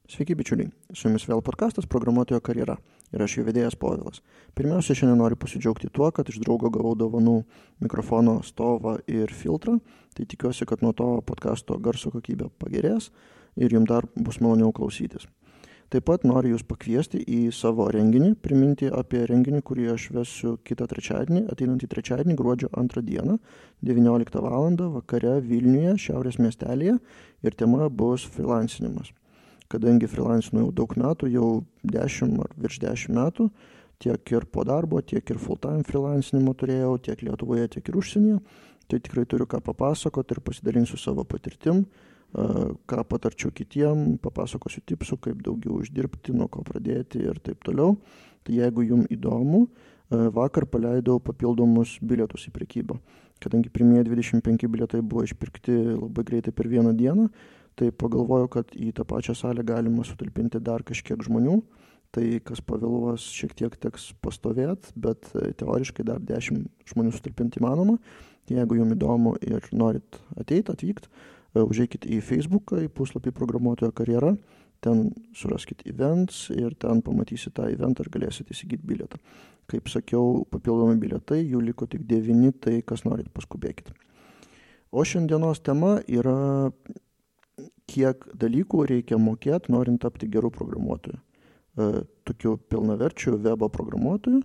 Sveiki bičiuliai, su jumis vėl podcastas Programuotojo karjera ir aš jo vedėjas Povilas. Pirmiausia, šiandien noriu pasidžiaugti tuo, kad iš draugo gavau dovanų mikrofono stovą ir filtrą, tai tikiuosi, kad nuo to podcasto garso kokybė pagerės ir jums dar bus maloniau klausytis. Taip pat noriu jūs pakviesti į savo renginį, priminti apie renginį, kurį aš vesiu kitą trečiadienį, ateinantį trečiadienį, gruodžio 2 dieną, 19 val. Vakare Vilniuje, Šiaurės miestelėje ir tema bus freelancinimas. Kadangi freelancinu jau daug metų, jau 10 ar virš 10 metų, tiek ir po darbo, tiek ir full-time freelancinimo turėjau, tiek Lietuvoje, tiek ir užsienyje, tai tikrai turiu ką papasakoti ir pasidalinsiu savo patirtim, ką patarčiau kitiem, papasakosiu tipsų, kaip daugiau uždirbti, nuo ko pradėti ir taip toliau. Tai jeigu jums įdomu, vakar paleidau papildomus bilietus į prekybą. Kadangi pirmieji 25 bilietai buvo išpirkti labai greitai per vieną dieną, tai pagalvojau, kad į tą pačią salę galima sutalpinti dar kažkiek žmonių. Tai kas pavėluos, šiek tiek teks pastovėti, bet teoriškai dar 10 žmonių sutalpinti įmanoma. Jeigu jums įdomu ir norit atvykti, užeikit į Facebooką, į puslapį Programuotojo karjera, ten suraskit events ir ten pamatysit tą eventą ir galėsit įsigyti bilietą. Kaip sakiau, papildomi bilietai, jų liko tik 9, tai kas norit paskubėkit. O šiandienos tema yra, kiek dalykų reikia mokėti, norint tapti gerų programuotojų. Tokiu pilnaverčiu webo programuotojų.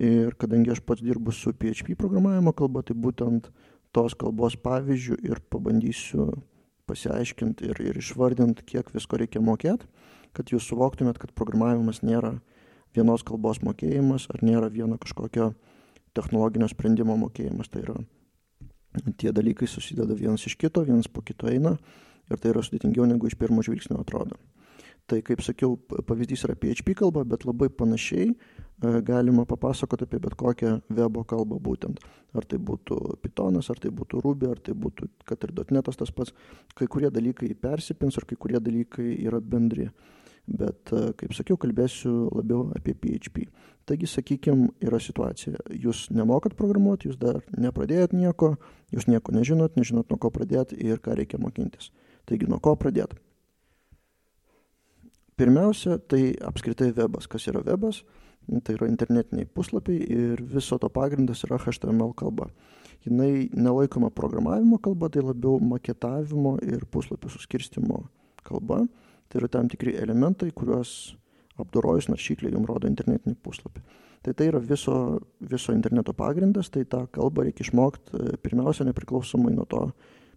Ir kadangi aš pats dirbu su PHP programavimo kalba, tai būtent tos kalbos pavyzdžių ir pabandysiu pasiaiškinti ir išvardinti, kiek visko reikia mokėti, kad jūs suvoktumėt, kad programavimas nėra vienos kalbos mokėjimas ar nėra vieno kažkokio technologinio sprendimo mokėjimas. Tai yra, tie dalykai susideda vienas iš kito, vienas po kito eina ir tai yra sudėtingiau negu iš pirmo žvilgsnio atrodo. Tai, kaip sakiau, pavyzdys yra PHP kalba, bet labai panašiai galima papasakoti apie bet kokią webo kalbą būtent. Ar tai būtų Pythonas, ar tai būtų Ruby, ar tai būtų, kad ir .NET'as tas pats. Kai kurie dalykai persipins, ar kai kurie dalykai yra bendri. Bet, kaip sakiau, kalbėsiu labiau apie PHP. Taigi, sakykime, yra situacija. Jūs nemokat programuoti, jūs dar nepradėjot nieko, jūs nieko nežinot nuo ko pradėti ir ką reikia mokintis. Taigi, nuo ko pradėti? Pirmiausia, tai apskritai webas. Kas yra webas? Tai yra internetiniai puslapiai ir viso to pagrindas yra HTML kalba. Jinai nelaikoma programavimo kalba, tai labiau maketavimo ir puslapių suskirstimo kalba. Tai yra tam tikri elementai, kuriuos apdorojus naršyklė jums rodo internetinį puslapį. Tai yra viso interneto pagrindas, tai tą kalbą reikia išmokti pirmiausia nepriklausomai nuo to,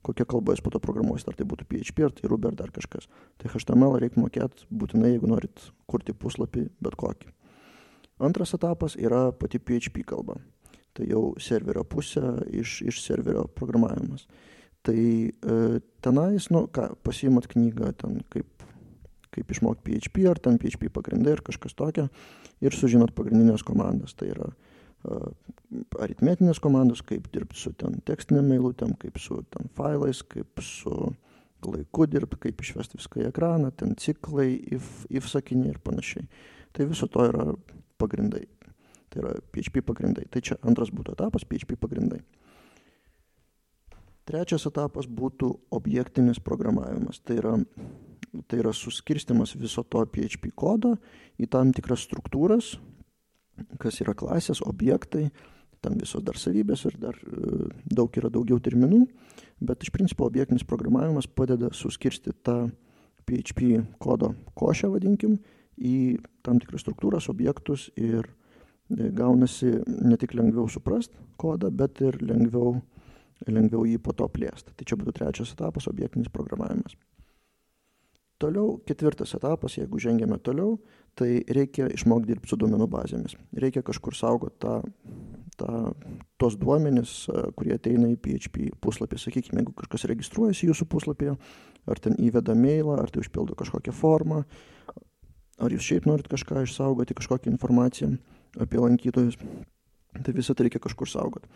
kokia kalba jūs po to programuosit, ar tai būtų PHP, ar tai Ruby, ar dar kažkas. Tai HTML reikia mokėti būtinai, jeigu norit kurti puslapį bet kokį. Antras etapas yra pati PHP kalba. Tai jau serverio pusė iš serverio programavimas. Tai tenais, pasiimat knygą, ten kaip išmokti PHP, ar ten PHP pagrindai, ar kažkas tokio, ir sužinot pagrindinės komandas. Tai yra aritmetinės komandos, kaip dirbti su ten tekstinėm eilutėm, kaip su ten failais, kaip su laiku dirbti, kaip išvesti viską į ekraną, ten ciklai, if sakiniai ir panašiai. Tai viso to yra pagrindai. Tai yra PHP pagrindai. Tai čia antras būtų etapas, PHP pagrindai. Trečias etapas būtų objektinis programavimas. Tai yra suskirstimas viso to PHP kodo į tam tikras struktūras, kas yra klasės, objektai, ten visos dar savybės ir dar yra daugiau terminų, bet iš principo objektinis programavimas padeda suskirstyti tą PHP kodo košę, vadinkim, į tam tikras struktūras, objektus ir gaunasi ne tik lengviau suprast kodą, bet ir lengviau jį po to plėsti. Tai čia būtų trečias etapas, objektinis programavimas. Toliau, ketvirtas etapas, jeigu žengėme toliau, tai reikia išmokti dirbti su duomenų bazėmis. Reikia kažkur saugoti tos duomenis, kurie ateina į PHP puslapį. Sakykime, jeigu kažkas registruojasi jūsų puslapyje, ar ten įveda mailą, ar tai užpildo kažkokią formą, ar jūs šiaip norit kažką išsaugoti, kažkokią informaciją apie lankytojus, tai visą tai reikia kažkur saugoti.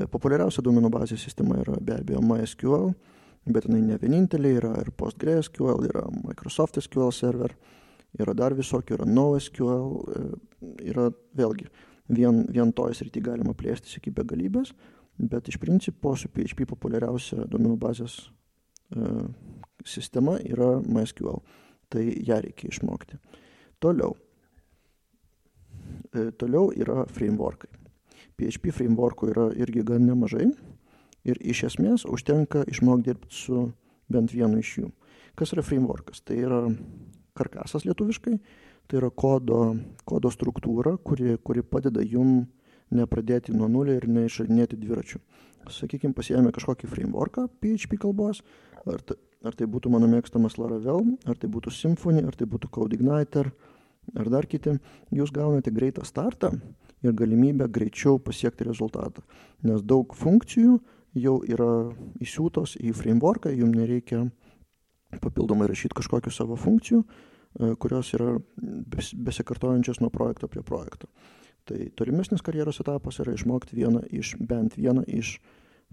Populiariausia duomenų bazės sistema yra be abejo MySQL, bet jinai ne vienintelė, yra ir PostgreSQL, yra Microsoft SQL Server, yra dar visokių, yra NoSQL, yra vėlgi, vien toj srity galima plėstis iki begalybės, bet iš principo su PHP populiariausia duomenų bazės sistema yra MySQL. Tai ją reikia išmokti. Toliau yra frameworkai. PHP frameworkų yra irgi gan nemažai ir iš esmės užtenka išmokti dirbti su bent vienu iš jų. Kas yra frameworkas? Tai yra karkasas lietuviškai, tai yra kodo struktūra, kuri padeda jum nepradėti nuo nulio ir neišradinėti dviračių. Sakykime, pasiėmė kažkokį frameworką PHP kalbos, ar tai būtų mano mėgstamas Laravel, ar tai būtų Symfony, ar tai būtų CodeIgniter, ar dar kiti, jūs gaunate greitą startą ir galimybę greičiau pasiekti rezultatą, nes daug funkcijų jau yra įsiūtos į frameworką, jums nereikia papildomai rašyti kažkokių savo funkcijų, kurios yra besikartojančios nuo projekto prie projekto. Tai tolimesnis karjeros etapas yra išmokti bent vieną iš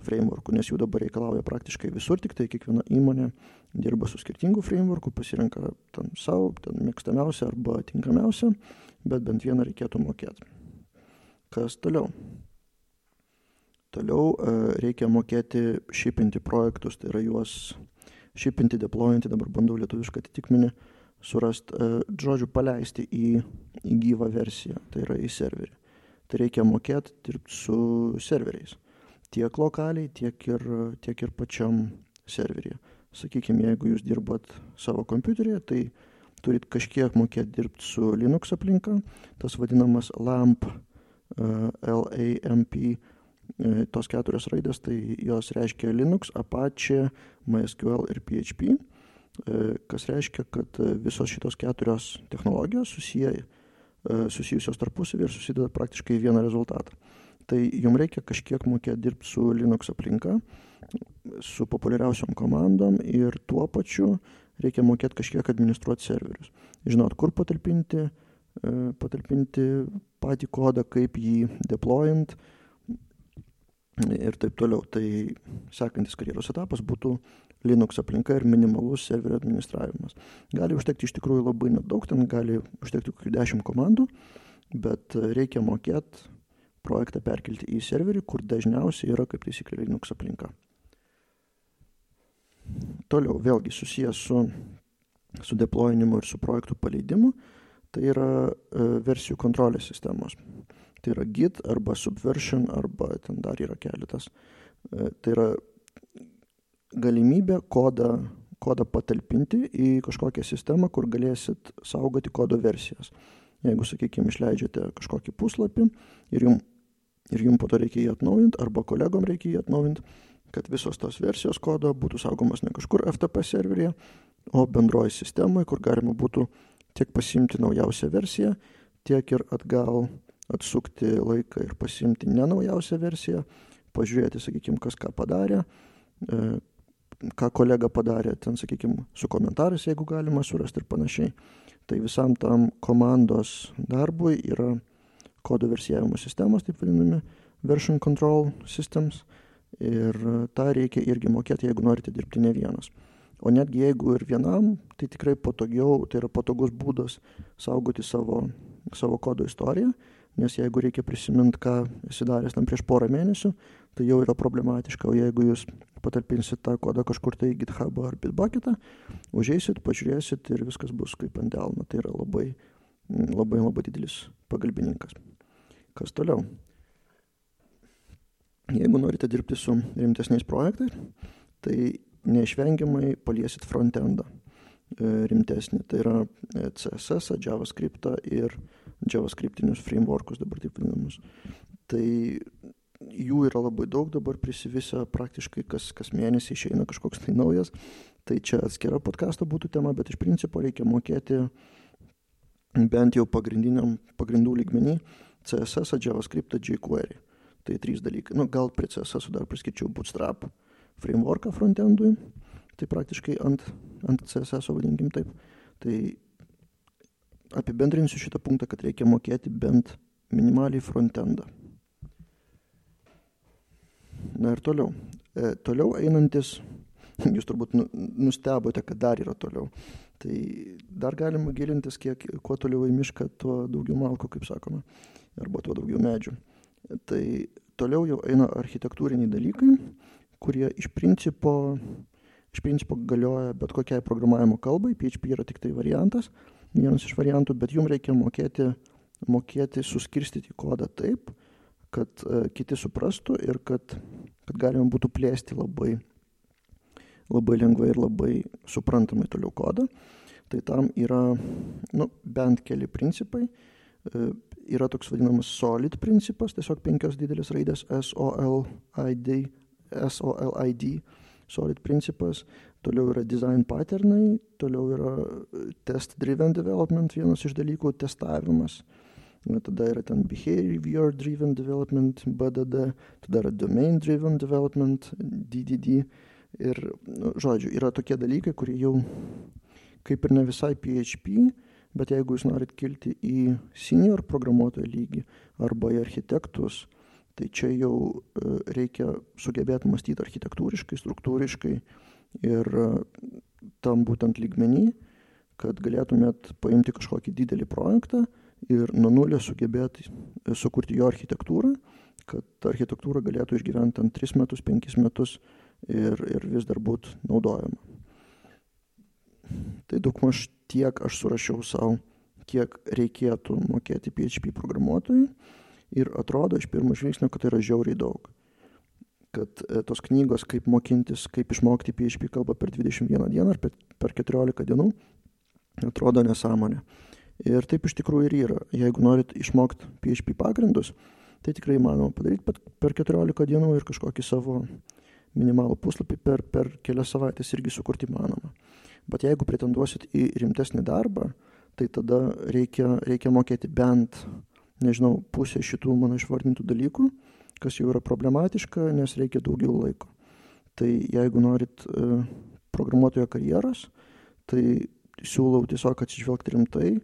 frameworkų, nes jų dabar reikalauja praktiškai visur, tik tai kiekviena įmonė dirba su skirtingų frameworkų, pasirenka savo mėgstamiausią arba tinkamiausią, bet bent vieną reikėtų mokėti. Kas toliau? Toliau reikia mokėti šipinti projektus, tai yra juos šipinti, deployinti, dabar bandau lietuvišką atitikmenį surasti, žodžiu, paleisti į gyvą versiją, tai yra į serverį. Tai reikia mokėti dirbti su serveriais. Tiek lokaliai, tiek ir pačiam serveryje. Sakykime, jeigu jūs dirbat savo kompiuteryje, tai turit kažkiek mokėti dirbti su Linux aplinka, tas vadinamas LAMP, LAMP, tos 4 raidės, tai jos reiškia Linux, Apache, MySQL ir PHP, kas reiškia, kad visos šitos 4 technologijos susijusios tarpusavy ir susideda praktiškai į vieną rezultatą. Tai jums reikia kažkiek mokėti dirbti su Linux aplinka, su populiariausiom komandom ir tuo pačiu reikia mokėti kažkiek administruoti serverius. Žinot, kur patalpinti patį kodą, kaip jį deployint ir taip toliau. Tai sekantis karjeros etapas būtų Linux aplinka ir minimalus serverio administravimas. Gali užtekti iš tikrųjų labai nedaug, ten gali užtekti kokių 10 komandų, bet reikia mokėti projektą perkelti į serverį, kur dažniausiai yra kaip taisyklė Linux aplinka. Toliau, vėlgi susijęs su deployinimu ir su projektų paleidimu, tai yra versijų kontrolės sistemos. Tai yra Git arba Subversion, arba ten dar yra keletas. Tai yra galimybė kodą patalpinti į kažkokią sistemą, kur galėsit saugoti kodo versijas. Jeigu, sakykime, išleidžiate kažkokį puslapį ir jums po to reikia jį atnaujinti, arba kolegom reikia jį atnaujinti, kad visos tos versijos kodo būtų saugomas ne kažkur FTP serveryje, o bendroji sistemoje, kur galima būtų tiek pasiimti naujausią versiją, tiek ir atgal atsukti laiką ir pasiimti ne naujausią versiją, pažiūrėti, sakykime, kas ką padarė, ką kolega padarė, ten, sakykime, su komentarais, jeigu galima surasti ir panašiai. Tai visam tam komandos darbui yra kodo versijavimo sistemos, taip vadinami, version control systems, ir tą reikia irgi mokėti, jeigu norite dirbti ne vienas. O netgi jeigu ir vienam, tai tikrai patogiau, tai yra patogus būdas saugoti savo kodo istoriją, nes jeigu reikia prisiminti, ką esi daręs tam prieš porą mėnesių, tai jau yra problematiška, o jeigu jūs patalpinsit tą kodą kažkur tai į GitHub ar Bitbucketą, užeisit, pažiūrėsit ir viskas bus kaip ant delno. Tai yra labai, labai, labai didelis pagalbininkas. Kas toliau? Jeigu norite dirbti su rimtesniais projektais, tai neišvengiamai paliesit frontendą rimtesnį. Tai yra CSS, JavaScript ir JavaScriptinius frameworkus dabar taip vadinamus. Tai jų yra labai daug, dabar prisivisa praktiškai kas mėnesį išeina kažkoks tai naujas. Tai čia atskira podcasto būtų tema, bet iš principo reikia mokėti bent jau pagrindų lygmenį CSS, JavaScript, jQuery. Tai 3 dalykai. Gal prie CSS dar priskirčiau Bootstrap frameworką frontendui. Tai praktiškai ant CSS, vadinkim taip. Tai apibendrinsiu šitą punktą, kad reikia mokėti bent minimaliai frontendą. Na ir toliau. Toliau einantis, jūs turbūt nustebote, kad dar yra toliau. Tai dar galima gilintis, kuo toliau į mišką, tuo daugiau malkų, kaip sakoma, arba tuo daugiau medžių. Tai toliau jau eina architektūriniai dalykai, kurie iš principo iš principo galioja bet kokiai programavimo kalbai, PHP yra tik tai variantas, vienas iš variantų, bet jums reikia mokėti suskirstyti kodą taip, kad kiti suprastų ir kad galima būtų plėsti labai lengvai ir labai suprantamai toliau kodą. Tai tam yra bent keli principai. Yra toks vadinamas SOLID principas, tiesiog 5 didelės raidės SOLID, SOLID principas. Toliau yra design patternai, toliau yra test driven development, vienas iš dalykų, testavimas. Tada yra ten behavior driven development, BDD, tada yra domain driven development, DDD. Ir, žodžiu, yra tokie dalykai, kurie jau kaip ir ne visai PHP, bet jeigu jūs norit kilti į senior programuotojo lygį arba į architektus, tai čia jau reikia sugebėti mąstyti architektūriškai, struktūriškai ir tam būtent lygmenį, kad galėtumėt paimti kažkokį didelį projektą ir nuo nulio sugebėti sukurti jo architektūrą, kad ta architektūra galėtų išgyventi 3 metus, 5 metus ir vis dar būtų naudojama. Tai daugmaž tiek aš surašiau savo, kiek reikėtų mokėti PHP programuotojui ir atrodo iš pirmo žvilgsnio, kad tai yra žiauriai daug. Kad tos knygos, kaip mokintis, kaip išmokti PHP kalbą per 21 dieną ar per 14 dienų, atrodo nesąmonė. Ir taip iš tikrųjų ir yra. Jeigu norit išmokti PHP pagrindus, tai tikrai įmanoma padaryti per 14 dienų ir kažkokį savo minimalų puslapį per kelias savaitės irgi sukurti įmanoma. Bet jeigu pretenduosit į rimtesnį darbą, tai tada reikia mokėti bent, pusę šitų mano išvardintų dalykų, kas jau yra problematiška, nes reikia daugiau laiko. Tai jeigu norit programuotojo karjeros, tai siūlau tiesiog atsižvelgti rimtai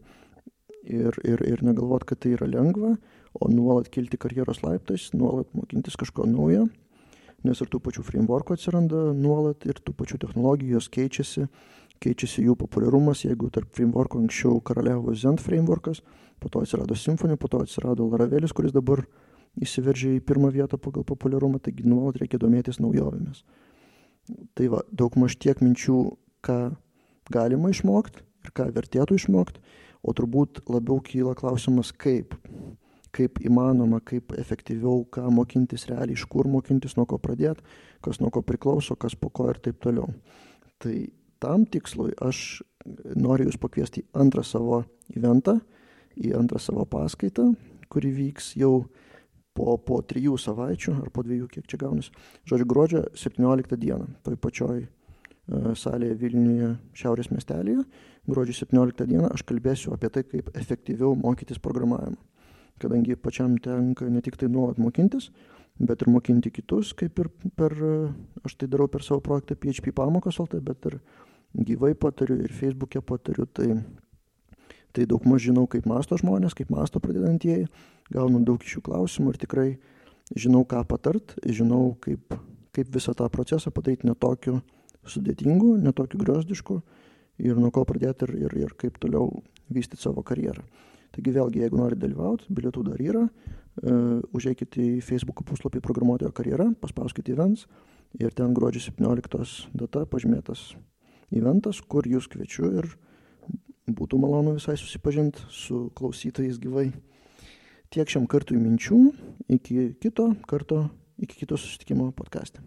ir negalvot, kad tai yra lengva, o nuolat kilti karjeros laiptais, nuolat mokintis kažko naujo, nes ir tų pačių frameworkų atsiranda nuolat ir tų pačių technologijų, jos keičiasi jų populiarumas. Jeigu tarp frameworkų anksčiau karaliavo Zend frameworkas, po to atsirado Symfony, po to atsirado Laravelis, kuris dabar įsiveržė į pirmą vietą pagal populiarumą, taigi nuolat reikia domėtis naujovėmis. Tai va, daugmaž tiek minčių, ką galima išmokti ir ką vertėtų išmokti, o turbūt labiau kyla klausimas, kaip įmanoma, kaip efektyviau, ką mokintis realiai, iš kur mokintis, nuo ko pradėti, kas nuo ko priklauso, kas po ko ir taip toliau. Tai tam tikslui aš noriu jūs pakviesti į antrą savo eventą, į antrą savo paskaitą, kuri vyks jau po 3 savaičių ar po 2, kiek čia gaunasi. Žodžiu, gruodžio 17 dieną, toj pačioj salėje Vilniuje Šiaurės miestelėje, gruodžio 17 dieną aš kalbėsiu apie tai, kaip efektyviau mokytis programavimą. Kadangi pačiam tenka ne tik tai nuolat mokintis, bet ir mokinti kitus, kaip ir aš tai darau per savo projektą PHP pamokos LT, bet ir gyvai patariu ir Facebook'e patariu, tai daugmaž žinau, kaip mąsto žmonės, kaip mąsto pradedantieji, gaunu daug iš jų klausimų ir tikrai žinau, ką patart, žinau, kaip visą tą procesą padaryti netokiu sudėtingu, netokiu griozdišku ir nuo ko pradėti ir kaip toliau vystyti savo karjerą. Taigi vėlgi, jeigu norite dalyvauti, bilietų dar yra, užeikite į Facebook puslapį Programuotojo karjera, paspauskite events ir ten gruodžio 17 data pažymėtas eventas, kur jūs kviečiu ir būtų malonu visai susipažinti su klausytojais gyvai. Tiek šiam kartui minčių, iki kito susitikimo podcaste.